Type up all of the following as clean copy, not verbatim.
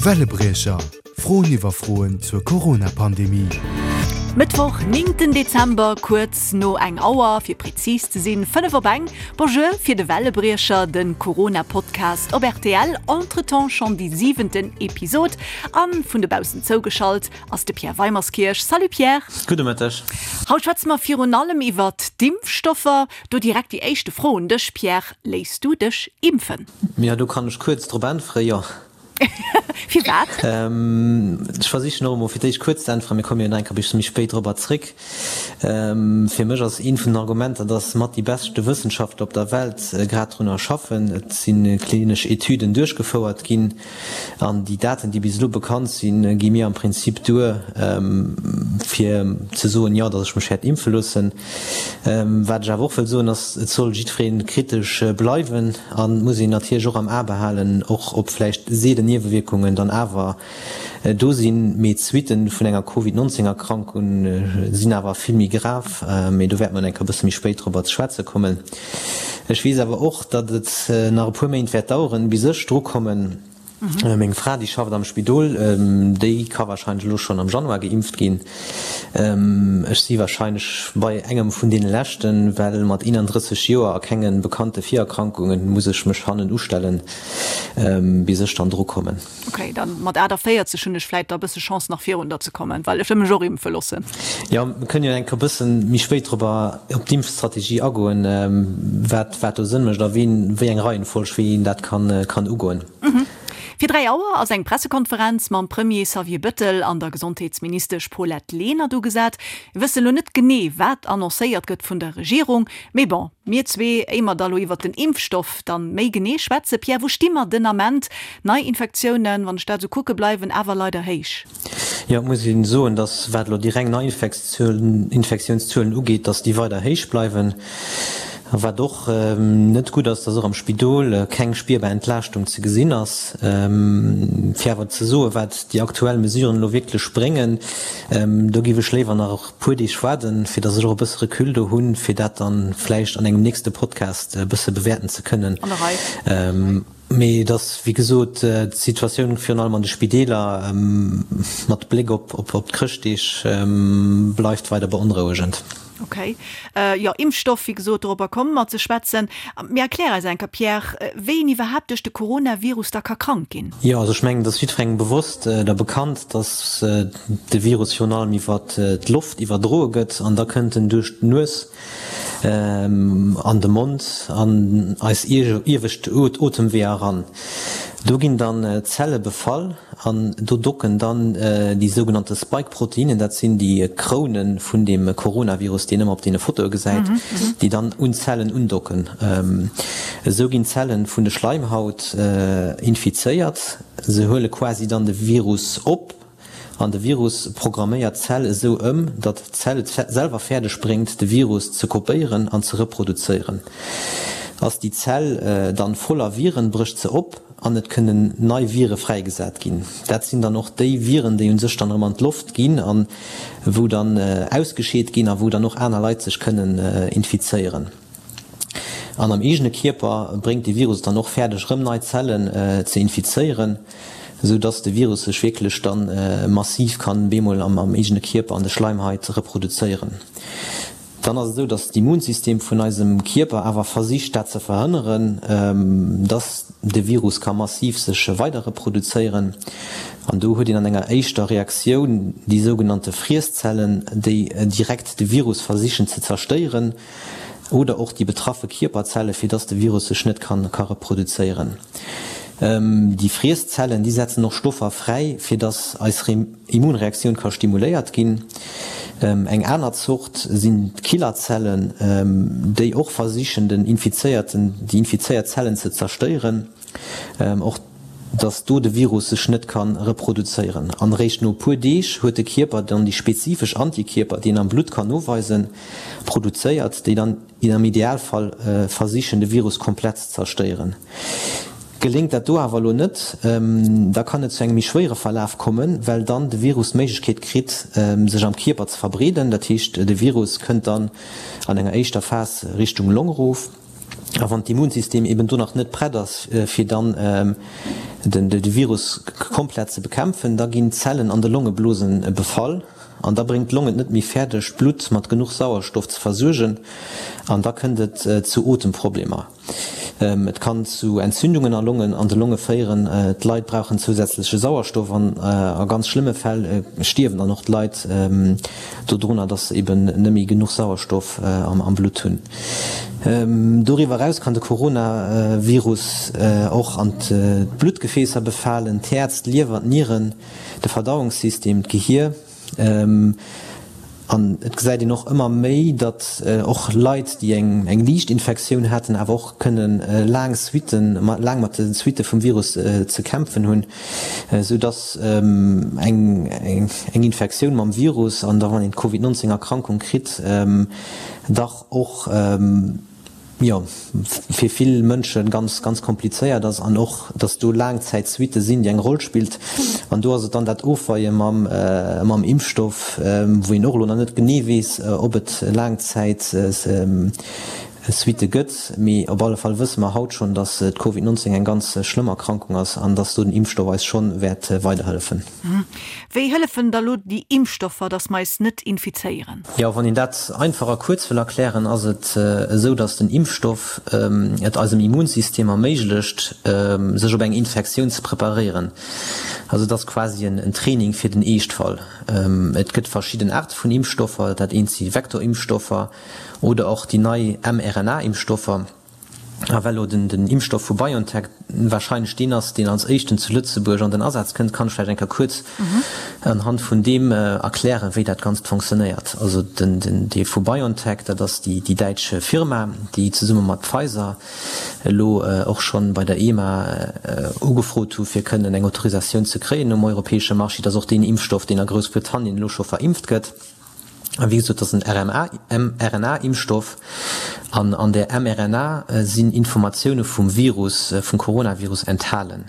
Wellebriecher, Froen iwwer Froen zur Corona-Pandemie. Mëttwoch, 9 Dezember, kuerz no eng Auer, fir prezis ze sinn, 5 op eng. Bonjour fir de Wellebriecher, de Corona-Podcast op rtl. Entretemps schonn déi siwenten Episod. A vun dobaussen zougeschalt ass de Pierre Weimerskirch. Salut Pierre! Gudde Mëtteg. Haut schwätze mer virun allem iwwert d'Impfstoffer. Do direkt déi éischte Fro un dech, Pierre, Léiss du dech impfen? Jo, do kann ech kuerz drop äntweren, jo. Firwat? Ech versichen och emol fir d'éischt kuerz ze äntweren, mir komme jo nach eng Kéier e bëssche méi spéit dorobber zréck. Fir mech ass eent vun den Argumenter, dass mat déi beschte Wëssenschaftler op der Welt grad drunner schaffen. Et si klinesch Etüden duerchgefouert ginn an déi Daten, déi bis elo bekannt sinn, gi mir am Prinzip duer, fir ze soen, jo, dass ech mech wäert impfe loossen. Wat ech awer och wëll soen, ass, et soll jiddweree kritesch bleiwen an et muss een natierlech och am A behalen, och ob vläicht seelen Niewewierkungen dann awer do sinn. Mee d'Suitten vun enger Covid 19 Erkrankung sinn awer vill méi grav. Mee do wäerte mer enk e bësse méi spéit dorobber ze schwätze kommen. Ech weess awer och, datt et nach e puer Méint wäert daueren, bis ech drukommen. Meng Fra, déi schafft am Spidol, déi ka warscheinlech elo schonn am Januar geimpft ginn. Ech si warscheinlech bei engem vun deene leschten, well mat 31 Joer a kenge bekannte Virerkrankungen muss ech mech hannen ustellen, bis ech dann dru kommen. Ok, dann mat 48 hunn ech vläit da bësse Chance nach virun der ze kommen, well ech wëll mech och impfe loossen. Jo, mir kënnen jo enk e bëssen méi spéit dorobber op d'Impfstrategie agoen, wat wat do Sënn mécht a ween, wéi eng Reihenfolg, wéi een dat kann kann ugoen. Fir 3 Auer ass eng Pressekonferenz mam Premier Xavier Bëttel an der Gesondheetsministesch Paulette Lenert ugesat. Mir wëssen elo net genee, wat annoncéiert gëtt vun der Regierung, mee bon, mir zwee, éier mer da lo iwwert den Impfstoff dann méi genee schwätzen, Pierre, wou sti mer den Ament? Neiinfektiounen, wann ech dat esou kucke, bleiwen awer leider héich. Jo, et muss een soen, datt wat elo déi reng Neiinfektiounszuelen ugeet, datt déi weider héich bleiwen. A wat och net gutt ass, datt och am Spidol keng spierbar Entlaaschtung ze gesinn ass. Fir awer ze soen, wat déi aktuell Mesuren elo wierklech bréngen, do géif ech léiwer nach e puer Deeg waarden, fir datt ech och e bësse Recul do hunn, fir dat dann vläicht an engem nächste Podcast e bësse bewäerten ze kënnen. An der Rei. Mee et ass, wéi gesot, d'Situatioun virun allem an de Spideeler, mat Bléck op d'Chrëschtdeeg, bleift weider beonrouegend. Ok. Jo, Impfstoff, wéi gesot, dorobber komme mer ze schwätzen. Mee erklär eis eng Kéier, Pierre, wéi een iwwerhaapt duerch de Coronavirus da ka krank ginn. Jo, also ech mengen, et ass jiddwerengem bewosst oder bekannt, datt de Virus virun allem iwwer d'Loft iwwerdroe gëtt an da kënnt en duerch d'Nues an de Mond, an eis iewescht Otemweeër eran. Do ginn dann d'Zelle befall an do docken dann déi sougenannte Spike-Proteinen, dat sinn déi Kroune vun deem Coronavirus, déi een ëmmer op deene Fotoe gesäit, déi dann un d'Zellen undocken. Esou ginn d'Zelle vun de Schleimhaut infizéiert, se huele quasi dann de Virus op. An de Virus programméiert d'Zell esou ëm, datt d'Zell et selwer fäerdeg bréngt, de Virus ze kopéieren an ze reproduzéieren. Ass déi Zell dann voller Viren, brécht se op an et kënnen nei Vire fräigesat ginn. Dat sinn dann och déi Viren, déi u sech dann erëm an d'Loft ginn an wou dann ausgescheet ginn a wou dann och aner Leit sech kënnen infizéieren. An am eegene Kierper bréngt de Virus et dann och fäerdeg rëm nei Zellen ze infizéieren, esou dass de Virus sech wierklech dann massiv kann bemol am eegene Kierper an de Schleimhait reproduzéieren. Dann ass et esou, dass d'Immunsystem vun eisem Kierper awer versicht dat ze verhënneren, dass de Virus ka massiv sech weider reproduzéieren. An do huet een an enger éischter Reaktioun déi sougenannte Friesszellen, déi direkt de Virus versichen ze zerstéieren. oder och déi betraffe Kierperzelle fir dass de Virus sech net kann ka reproduzéieren. Déi Friesszellen déi setzen och Stoffer fräi fir dass eis Immunreaktioun ka stimuléiert ginn. Eng aner Zort sinn d'Killerzellen, déi och versichen den infizéierten déi infizéiert Zellen ze zerstéieren. Och dass do de Virus sech net ka reproduzéieren. An eréischt no e puer Deeg huet de Kierper dann déi spezifesch Antikierper, déi een am Blutt kann noweisen, produzéiert, déi dann am Idealfall versichen, de Virus komplett ze zerstéieren. Geléngt dat do awer elo net, da kann et zu engem méi schwéiere Verlaf kommen, well dann de Virus d'Méiglechkeet kritt, sech am Kierper ze verbreeden. Dat heescht, de Virus kënnt dann an enger éischter Phas Richtung Long erof. A wann d'Immunsystem eben do nach net prett ass, fir dann de Virus komplett ze bekämpfen, da ginn d'Zellen an de Longeblose befall an da bréngt d'Long et net méi fäerdeg, d'Blutt mat genuch Sauerstoff ze versuergen an da kënnt et zu Otemproblemer. Et kann zu Entzündungen a Longen an de Longe féieren. D'Leit brauchen zousätzleche Sauerstoff an a ganz schlëmme Fäll stierwen dann och d'Leit dodrunner, dass se eben net méi genuch Sauerstoff am Blutt hunn. Doriwwer eraus kann de Coronavirus och an d'Bluttgefäässer befalen, d'Häerz, d'Liewer, d'Nieren, de Verdauungssystem, d'Gehier. An et gesäit een och ëmmer méi, datt och Leit, déi eng liicht Infektioun haten, awer och kënne laang Suitten, laang mat de Suitte vum Virus ze kämpfen hunn, esou datt eng Infektioun mam Virus an da wann een d'Covid 19 Erkrankung kritt, dach och, jo, fir vill Mënsche ganz, ganz komplizéiert ass an och, dass do Laangzäitsuitte sinn, déi eng Roll spillt. An do ass et dann dat Ofweie mam, mam Impfstoff, wou een och elo nach net genee weess, ob et Laangzäitsuitte gëtt. Mee op alle Fall wësse mer haut schonn, dass d'Covid 19 eng ganz schlëmm Erkrankung ass an dass do den Impfstoff eis schonn wäert weiderhëllefen. Wéi hëllefen da lo déi Impfstoffer, dass mer eis net infizéieren? Jo, wann een dat einfach a kuerz wëll erklären, ass et esou, dass den Impfstoff et eisem Immunsystem erméiglecht, sech op eng Infektioun ze preparéieren. Also et ass quasi en Training fir den Eeschtfall. Et gëtt verschidden Aarte vun Impfstoffer, dat eent si Vektorimpfstoffer oder och déi nei mRNA-Impfstoffer. A well elo den Impfstoff vu BioNTech warscheinlech deen ass, deen als éischten zu Lëtzebuerg an den Asaz kënnt, kann ech vläicht eng Kéier kuerz anhand vun deem erklären, wéi dat Ganzt fonctionnéiert. Also den dee vu BioNTech, dat ass déi däitsch Firma, déi zesumme mat Pfizer elo och schonn bei der EMA ugefrot hu fir kënnen eng Autorisatioun ze kréien um europäesche Marché. Dat ass och deen Impfstoff, deen a Groussbritannien elo scho verimpft gëtt. A wéi gesot, dat ass en mRNA-Impfstoff. An an där mRNA sinn Informatioune vum Virus, vum Coronavirus enthalen.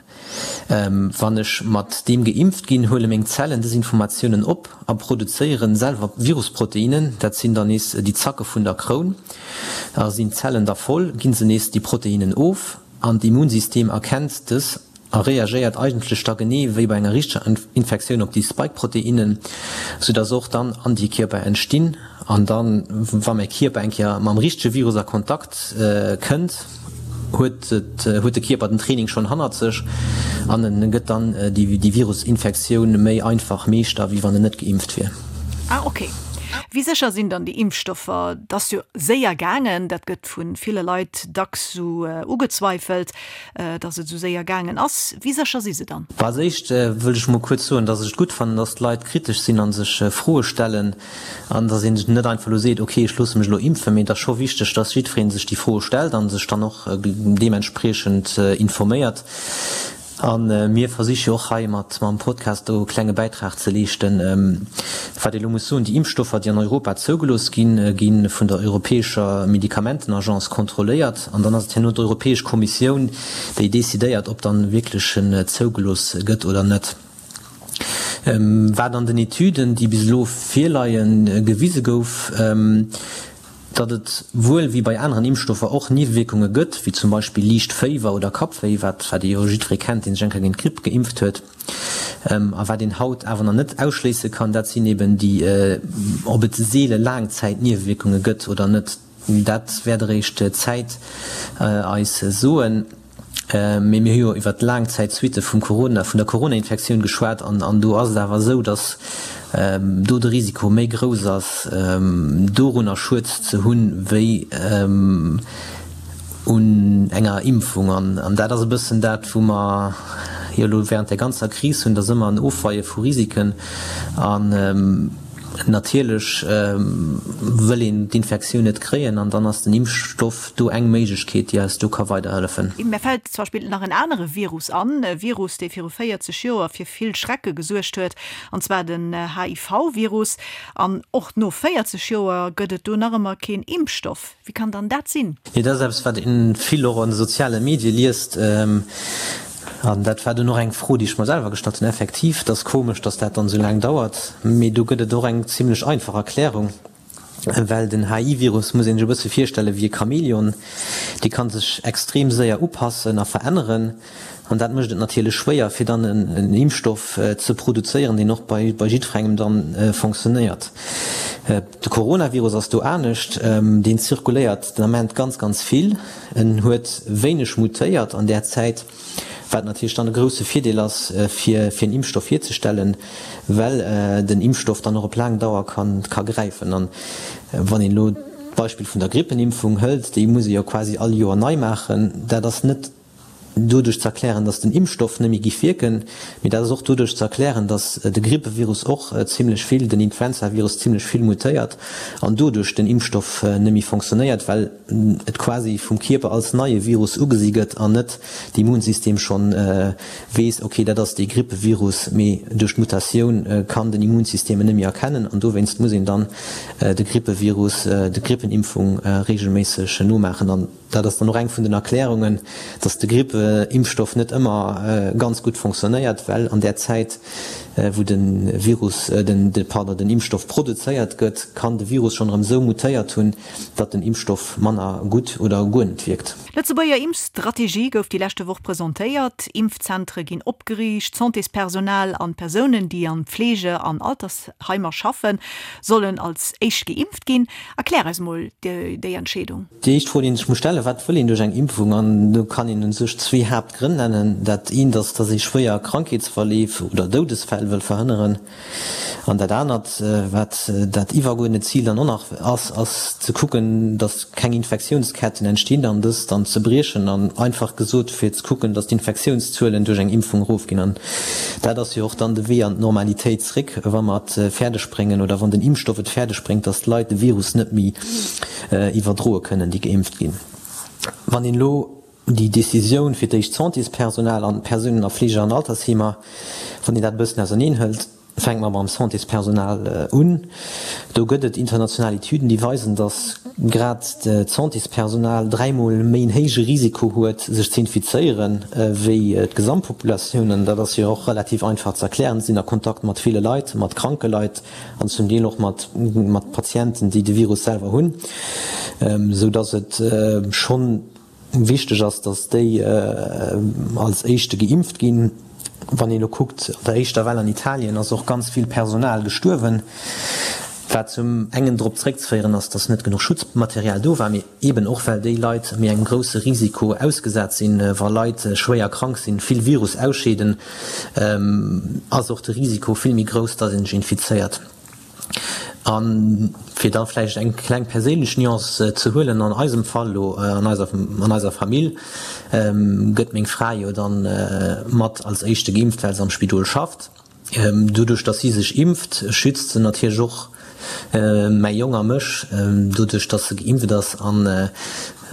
Wann ech mat deem geimpft ginn, huele meng Zellen dës Informatiounen op a produzéieren selwer Virusproteinnen. Dat sinn dann nees déi Zacke vun der Kroun. A sinn d'Zellen da voll, ginn se nees déi Proteinnen of. An d'Immunsystem erkennt dës a reagéiert eigentlech da genee wéi bei enger richteger Infektioun op déi Spike-Proteinnen, soudass och dann Antikierper entstinn. An dann, wa mäi Kierper eng Kéier mam richtege Virus a Kontakt kënnt, huet et, huet de Kierper den Training schonn hannert sech an en gëtt dann déi Virusinfektioun méi einfach Meeschter, wéi wann en net geimpft wier. Ah ok. Wéi sécher sinn dann déi Impfstoffer? Et ass jo séier gaangen, dat gëtt vu ville Leit dacks sou ugezweifelt, datt et sou séier gaangen ass. Wéi sécher si se dann? Als éischt wëll ech mol kuerz soen, datt ech et gutt fannen, datt d'Leit kritesch sinn a sech Froe stellen an datt een net einfach elo seet, ok, ech loosse mech elo impfen. Mee et ass scho wichteg, datt jiddweree sech déi Froe stellt a sech dann och deementspriechend informéiert. A mir versiche jo och hei mat mam Podcast do e klenge Bäitrag ze leeschten. Wat ee elo muss soen, Déi Impfstoffer, déi an Europa zougelooss ginn, gi vun der europäescher Medikamentenagence kontrolléiert. An dann ass et herno d'Europäesch Kommissioun, déi decidéiert, ob dann wierklech en zougelooss gëtt oder net. Wat an den Etüden, déi bis elo virleien, gewise gouf, Datt et wuel wéi bei aneren Impfstoffer och Niewewierkunge gëtt, wéi zum Beispill liicht Féiwer oder Kappwéi, wat wat ee jo jiddweree kennt, dee sech eng Kéier géint d'Gripp geimpft huet. A wat een haut awer nach net ausschléisse kann, dat sinn eben déi, ob et seele Laangzäitniewewierkunge gëtt oder net, dat wäert eréischt d'Zäit eis soen. Mee mir hu jo iwwert d'Laangzäitsuitte vum Corona, vun der Corona-Infektioun geschwat an an do ass et awer esou, datt do de Risiko méi grouss ass, dorunner Schued ze hunn, wéi un enger Impfung. An an dat ass e bëssen dat, wou mer jo elo während där ganzer Kris hunn, dat ass ëmmer en Ofweie vu Risiken. An natierlech wëll een d'Infektioun net kréien an dann ass den Impfstoff do eng Méiglechkeet, déi eis do ka weiderhëllefen. Mär fält zum Beispill nach en anere Virus an, e Virus, dee viru 40 Joer fir vill Schrecke gesuergt huet, an zwar den HIV-Virus. An och no 40 Joer gëtt et do nach ëmmer keen Impfstoff. Wéi kann dann dat sinn? Jo, dat ass eppes, wat ee vill och an de soziale Medie liest. An dat war dunn och eng Fro, déi ech mer selwer gestallt hunn. Effektiv, et ass komesch, datt dat dann esou laang dauert. Mee do gëtt et och eng zimlech einfach Erklärung. Well den HI-Virus muss een sech e bësse virstelle wéi e Chamäleon, dee kann sech extrem séier upassen a veränneren. An dat mécht et natierlech schwéier, fir dann en Impfstoff ze produzéieren, deen och bei jiddwerengem dann fonctionnéiert. De Coronavirus ass do anescht, deen zirkuléiert den Ament ganz, ganz vill. En huet wéineg mutéiert an där Zäit, wat natierlech dann e grousse Virdeel ass, fir en Impfstoff hierzestellen, well den Impfstoff dann och op laang Dauer ka gräifen. An wann een elo d'Beispill vun der Grippenimpfung hëlt, déi muss ee jo quasi all Joer nei maachen, dat ass net doduerch ze erklären, datt den Impfstoff net méi giff wierken, mee dat ass och doduerch ze erklären, datt de Grippevirus och zimlech vill, den Influenzavirus zimlech vill mutéiert an doduerch den Impfstoff net méi fonctionnéiert, well et quasi vum Kierper als neie Virus ugesi gëtt an net d'Immunsystem schonn weess, ok, dat ass dee Grippevirus, mee duerch d'Mutatioun kann den Immunsystem en net méi erkennen an dowéinst muss een dann de Grippevirus, de Grippenimpfung reegelméisseg nomaachen. Dat ass dann och eng vun den Erklärungen, dass de Grippeimpfstoff net ëmmer ganz gutt fonctionnéiert, well an där Zäit, wou de Virus, den, pardon, den Impfstoff produzéiert gëtt, kann de Virus schonn erëm esou mutéiert hunn, datt den Impfstoff manner gutt oder guer net wierkt. D'Lëtzebuerger Impfstrategie gouf déi leschte Woch presentéiert. Impfzentere ginn opgeriicht, d'Santéspersonal an d'Persounen, déi an Fleege an Altersheimer schaffen, sollen als éischt geimpft ginn. Erklär eis mol déi Entscheedung. Déi éischt Fro, déi een sech muss stellen, Wat wëll een duerch eng Impfung? An do kann een u sech zwee Haaptgrënn nennen. Dat eent ass, datt ee schwéier Krankheetsverleef oder Doudesfäll wëll verhënneren. An dat anert, wat dat iwwergeuerdent Zil dann och nach ass, ass ze kucken, datt keng Infektiounsketten entstinn an dës dann ze briechen. An einfach gesot, fir ze kucken, datt d'Infektiounszuelen duerch eng Impfung erofginn. An dat ass jo och dann de Wee an d'Normalitéit zréck, wa mer et fäerdeg bréngen oder wann den Impfstoff et fäerdeg bréngt, datt d'Leit de Virus net méi iwwerdroe kënnen, déi geimpft ginn. Wann een elo déi Décisioun fir d'éischt d'Santéspersonal an d'Persounen a Fleege an Altersheemer, wann een dat e bëssen auserneen hëlt, fänke mer mam Santéspersonal un. Do gëtt et international Etüden, déi weisen, datt grad d'Santéspersonal dräimol méi en héije Risiko huet, sech ze infizéieren, wéi d'Gesamtpopulatioun. An dat ass jo och relativ einfach ze erklären, Si sinn a Kontakt mat ville Leit, mat kranke Leit, an zum Deel och mat mat Patienten, déi de Virus selwer hunn, esou datt et schonn wichteg ass, datt déi als éischte geimpft ginn. Wann een elo kuckt, an der éischter Well an Italien ass och ganz vill Personal gestuerwen, wat zum engen drop zréckzeféieren ass, datt net genuch Schutzmaterial do war, mee Eben och well déi Leit méi engem grousse Risiko ausgesat sinn. Wa Leit schwéier krank sinn, vill Virus ausscheeden, ass och de Risiko vill méi grouss, datt ee sech infizéiert. A fir da vläicht eng kleng perséinlech Nuance ze huelen, an eisem Fall elo, an eiser, an eiser Famill, gëtt meng Fra jo dann mat als éischte geimpft, well se am Spidol schafft. Doduerch datt si sech impft, schützt se natierlech och mäi Jong a mech. Doduerch datt se geimpft ass, an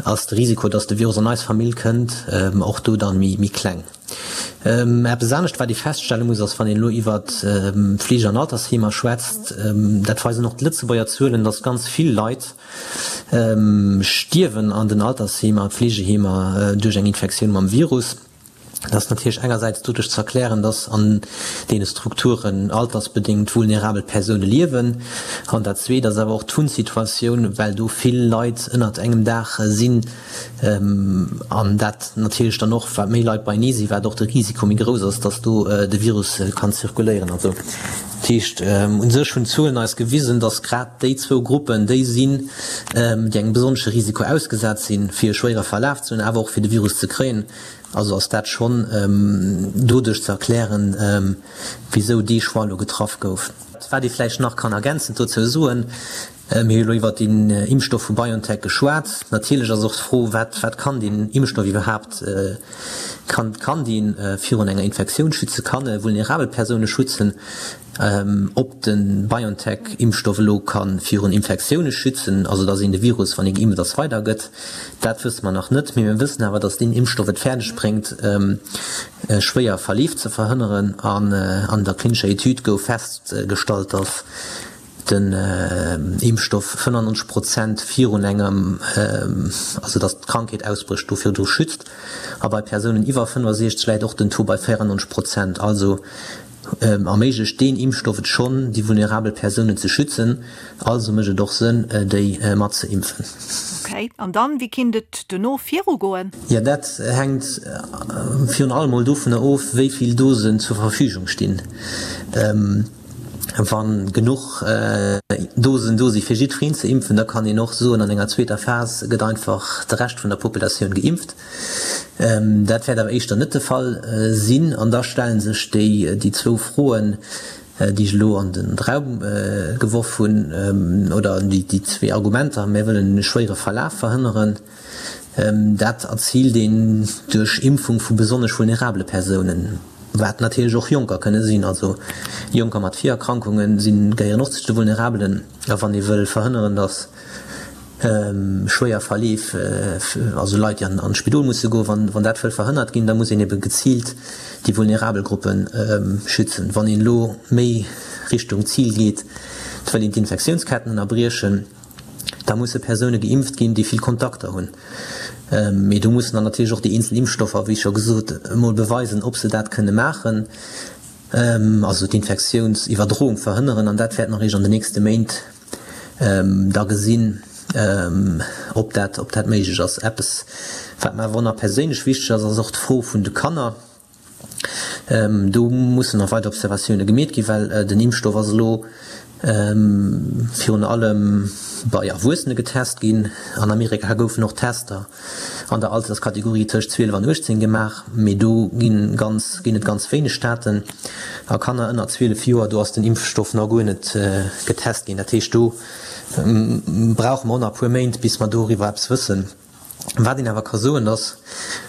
ass de Risiko, datt de Virus an eis Famill kënnt, och do dann méi kleng. Eppes anescht wat ee feststelle muss, ass wann een elo iwwert Fleege an Altersheemer schwätzt, dat weisen och d'Lëtzebuerger Zuelen, datt ganz vill Leit stierwen an den Altersheemer, Fleegeheemer duerch eng Infektioun mam Virus. Dat ass natierlech engersäits doduerch ze erklären, dass an deene Strukturen altersbedéngt vulnerabel Persoune liewen. An dat Zweet ass awer och d'Wunnsituatioun, well do vill Leit ënnert engem Daach sinn an dat natierlech dann och, wat méi Leit beienee sinn, wat och de Risiko méi grouss ass, dass do de Virus kann zirkuléieren. Also dat heescht, u sech hunn d'Zuelen eis gewisen, dass grad déi zwou Gruppen déi sinn, déi engem besonnesche Risiko ausgesat sinn, fir e schwéiere Verlaf ze hunn, awer och fir de Virus ze kréien. Also ass dat schonn doduerch ze erklären, wisou dee Choix elo getraff gouf. Wat ee vläicht nach kann ergänzend dozou soen, Mir hu elo iwwert deen Impfstoff vu BioNTech geschwat. Natierlech ass och d'Fro, wat wat kann deen Impfstoff iwwerhaapt, kann kann dee virun enger Infektioun schützen, kann e vulnerabel Persoune schützen? Ob de BioNTech-Impfstoff elo ka virun Infektioune schützen, also datt een de Virus, wann ee geimpft ass, weidergëtt, dat wësse mer nach net. Mee mir wëssen awer, datt deen Impfstoff et fäerdeg bréngt, schwéier Verleef ze verhënneren. An an der klinescher Etüd gouf festgestallt, datt den Impfstoff 95 Prozent virun engem, also datt d'Krankheet ausbrécht, do virdru schützt. A bei Persounen iwwer 65 läit och den Taux bei 94 Prozent. Also. erméiglecht deen Impfstoff et schonn, déi vulnerabel Persounen ze schützen. Also mécht et och Sënn, déi mat ze impfen. Ok, an dann, wéi kinnt et dono virugoen? Jo, dat hänkt virun allem mol dovunner of, wéi vill Dosen zur Verfügung stinn. Wa genuch Dosen do si fir jiddwereen ze impfen, da kann een och soen, an enger zweeter Phas gëtt einfach de Rescht vun der Populatioun geimpft. Dat wäert awer éischter net de Fall sinn. An da stelle sech déi zwou Froen, déi ech elo an de Raum geworf hunn, oder déi zwee Argumenter, Mir wëllen e schwéiere Verlaf verhënneren. Dat erziilt een duerch Impfung vu besonnesch vulnerabele Persounen, wat natierlech och Jonker kënne sinn. Also Jonker mat Virerkrankunge sinn, gehéieren och zu de Vulnerabelen. A wann ee wëll verhënneren, datt schwéier Verleef, also Leit, déi an d'Spidol musse goen, wann dat wëll verhënnert ginn, da muss een ebe geziilt déi vulnerabel Gruppe schützen. Wann een elo méi Richtung Zil geet, et wëll een d'Infektiounsketten ënnerbriechen, da musse Persoune geimpft ginn, déi vill Kontakter hunn. Mee do mussen dann natierlech och déi eenzel Impfstoffer, wéi scho gesot, emol beweisen, ob se dat kënne maachen, also d'Infektiounsiwwerdroung verhënneren. An dat wäert mer eréischt an den nächste Méint da gesinn, ob dat, ob dat méiglech ass. Eppes, wat mer awer och nach perséinlech wichteg ass, ass och d'Fro vun de Kanner. Do mussen nach weider Observatioune gemeet ginn, well den Impfstoff ass elo virun allem bei Erwuessene getest ginn. An Amerika goufen och Tester an der Alterskategorie tëscht 12 an 18 gemaach, mee do ginn ganz ginn et ganz wéineg Daten. A Kanner ënner 12 Joer, do ass den Impfstoff nach guer net getest ginn. Dat heescht, do brauche mer och nach e puer Méint, bis mer doriwwer eppes wëssen. Wat een awer ka soen, dass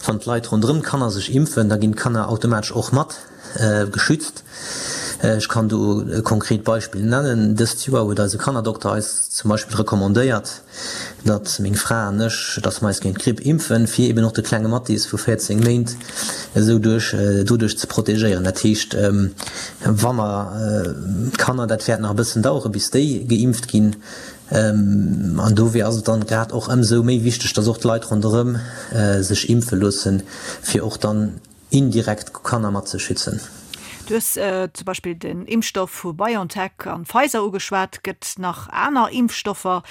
wann d'Leit ronderëm d'Kanner sech impfen, da ginn d'Kanner automatesch och mat geschützt. Ech kann do e konkret Beispill nennen, Dëst Joer huet eise Kannerdokter eis zum Beispill recommandéiert, datt meng Fra an ech, datt mer eis géint d'Gripp impfen, fir eben och de klenge Mathis vu 14 Méint esou duerch doduerch ze protegéieren. Dat heescht, wa mer d'Kanner, dat wäert nach e bëssen dauere bis déi geimpft ginn, An dofir ass et dann grad och ëmsou méi wichteg, dass och d'Leit ronderëm sech impfe loossen, fir och dann indirekt d'Kanner mat ze schützen. Du hues zum Beispill den Impfstoff vu BioNTech an Pfizer ugeschwat. Gëtt nach aner Impfstoffer?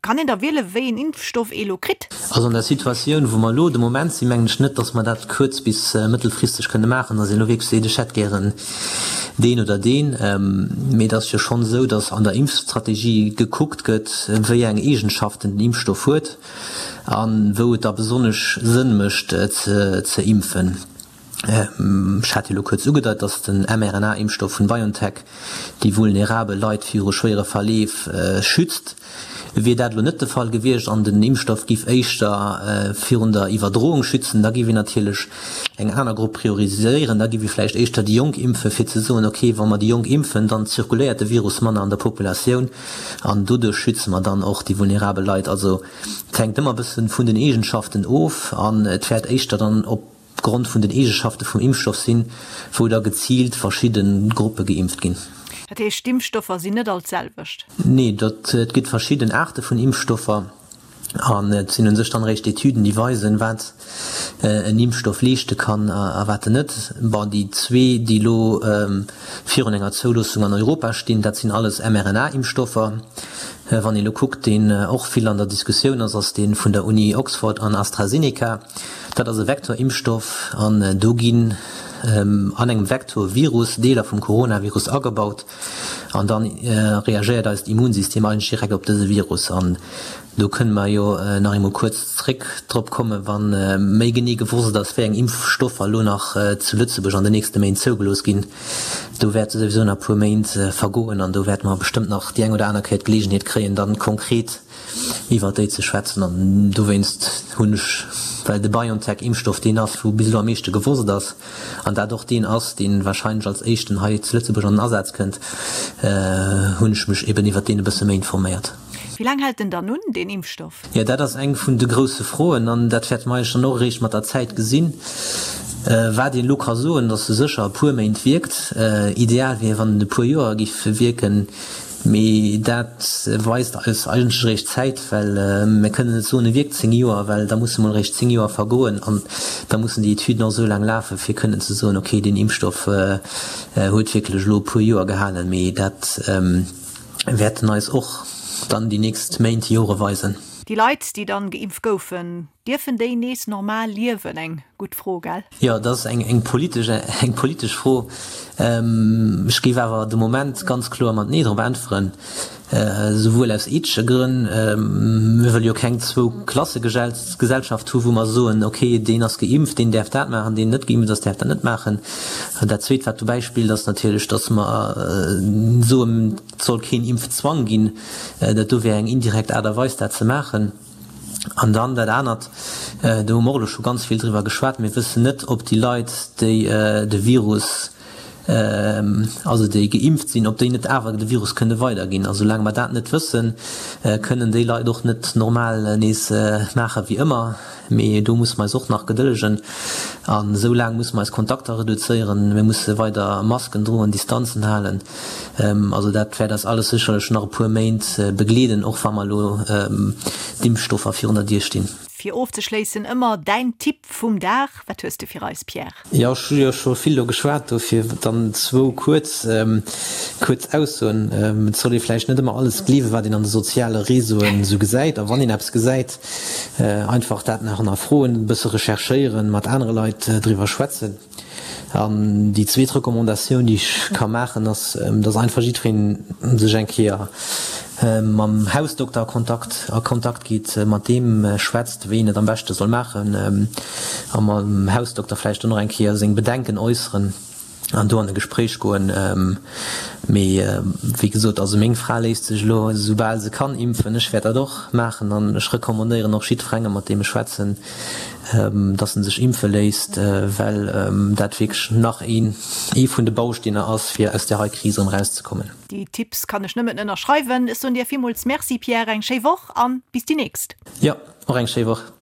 Kann een da wiele wéi een Impfstoff ee lo kritt? Also an der Situatioun wou mer elo de Moment sinn, mengen ech net, dass mer dat kuerz bis mëttelfristeg kënne maachen, dass een elo wierklech seet, ech hätt gären deen oder deen. Mee et ass jo schonn esou, datt an der Impfstrategie gekuckt gëtt, wéi eng Eegenschaften den Impfstoff huet a wou et da besonnesch Sënn mécht ze impfen. Ech hat jo elo kuerz ugedeit, datt den mRNA-Impfstoff vun BioNTech déi vulnerabel Leit viru schwéiere Verleef schützt. Wier dat elo net de Fall gewiescht an den Impfstoff giff éischter virun der Iwwerdroung schützen, da giff een natierlech eng aner Grupp prioriséieren. Da giff ee vläicht éischter déi Jonk impfen, fir ze soen, ok, wa mer déi Jonk impfen, dann zirkuléiert de Virus manner an der Populatioun an doduerch schütze mer dann och déi vulnerabel Leit. Also et hänkt ëmmer e bësse vun den Eegenschaften of an et wäert éischter dann op Grond vun den Eegeschafte vum Impfstoff sinn, wou da geziilt verschidde Gruppe geimpft ginn. Dat heescht, d'Impfstoffer sinn net all d'selwecht? Nee, dat, et gëtt verschidden Aarte vun Impfstoffer an et sinn u sech dann eréischt Etüden, déi weisen, wat en Impfstoff leeschte kann a wat en net. Bon, déi zwee, déi elo virun enger Zouloossung an Europa stinn, dat sinn alles mRNA-Impfstoffer. Wann ee elo kuckt, deen och vill an der Diskussioun ass, ass dee vun der Uni Oxford an AstraZeneca. Dat ass e Vektorimpfstoff an do ginn an engem Vektorvirus Deeler vum Coronavirus agebaut an da reagéiert eist Immunsystem eigentlech direkt op dëse Virus. An do kënne mer jo nach eemol kuerz zréck drop kommen, wa méi genee gewosst ass, wéi eng Impfstoffer elo nach zu Lëtzebuerg an den nächste Méint zougelooss ginn. Do wäerte souwisou nach e puer Méint vergoen an do wäerte mer bestëmmt nach déi eng oder aner Kéier d'Geleegenheet kréien, dann konkret iwwert déi ze schwätzen an dowéinst hunn ech, well de BioNTech-Impfstoff deen ass, wou bis elo am meeschte gewosst ass an dat och deen ass, dee wahrscheinlech als éischten hei zu Lëtzebuerg an den Asaz kënnt, hunn ech mech eben iwwert deen e bësse méi informéiert. Wéi laang hält en dann un, deen Impfstoff? Jo, dat ass eng vun de grousse Froen an dat wäerte mer eigentlech dann och eréischt mat der Zäit gesinn. Wat een elo ka soen, datt e sécher e puer Méint wierkt. Ideal wier, wann en e puer Joer géif wierken. Mee dat weist eis eigentlech eréischt d'Zäit, well mir kënnen net soen, e wierkt 10 Joer, well da musse mol eréischt 10 Joer vergoen an da mussen déi Etüden och esou laang lafen, fir kënnen ze soen, okay, deen Impfstoff huet wierklech elo e puer Joer gehalen. Mee dat wäerten eis och dann déi nächst Méint, Jore weisen. Déi Leit, déi dann geimpft goufen, dierfen déi nees normal liewen? Eng gutt Fro, gell? Jo, dat ass eng politesch, eng politesch Fro. Ech géif awer de Moment ganz kloer mat Nee drop äntweren, souwuel aus ethesche Grënn, mir wëlle jo keng Zwou-Klasse-Gesellschaft hu wou mer soen, okay, deen ass geimpft, deen däerf dat maachen, deen net geimpft ass, däerf dat net maachen. Dat Zweet, wat dobäi spillt, ass natierlech, datt mer soen, et soll keen Impfzwang ginn. Dat do wär eng indirekt Aart a Weis, dat ze maachen. An dann dat anert, do hu mer och elo scho ganz vill driwwer geschwat, Mir wëssen net, ob déi Leit, déi de Virus, also déi geimpft sinn, ob déi net awer de Virus kënne weiderginn. A soulaang mer dat net wëssen, kënnen déi Leit och net normal nees maache wéi ëmmer. Mee do musse mer eis och nach gedëllegen. An esou laang musse mer eis Kontakter reduzéieren, mir musse weider Masken droen, Distanzen halen. Also dat wäert eis alles sécherlech nach e puer Méint begleeden, och wa mer elo d'Impfstoffer virun der Dier stinn. Fir ofzeschléissen ëmmer däin Tipp vum Dag, wat hues de fir eis, Pierre? Jo, ech hu jo scho vill elo geschwat, dofir dann zwou kuerz, kuerz Aussoen. Et soll ee vläicht net ëmmer alles gleewen, wat een an de soziale Réseauen esou gesäit. A wann een eppes gesäit, einfach dat nach hannerfroen, e bësse recherchéieren, mat anere Leit driwwer schwätzen. An déi zweet Recommandatioun, déi ech ka maachen, ass, dass einfach jiddweree sech eng Kéier mam Hausdokter a Kontakt, a Kontakt geet, mat deem schwätzt, wéi een et am beschte soll maachen, a mam Hausdokter vläicht dann och eng Kéier seng Bedenken äusseren an do an e Gespréich goen. Mee wéi gesot, also meng Fra léisst sech elo esoubal se kann impfen. Ech wäert dat och maachen an ech recommandéieren och jiddwerengem, mat deem ech schwätzen, dass en sech impfe léisst, well dat wierklech nach een ee vun de Bausteener ass, fir aus där hei Kris erëm erauszekommen. Déi Tipps kann ech nëmmen ënnerschreiwen. Ech soen dir villmools Merci Pierre, eng schéi Woch an bis déi nächst. Jo, och eng schéi Woch.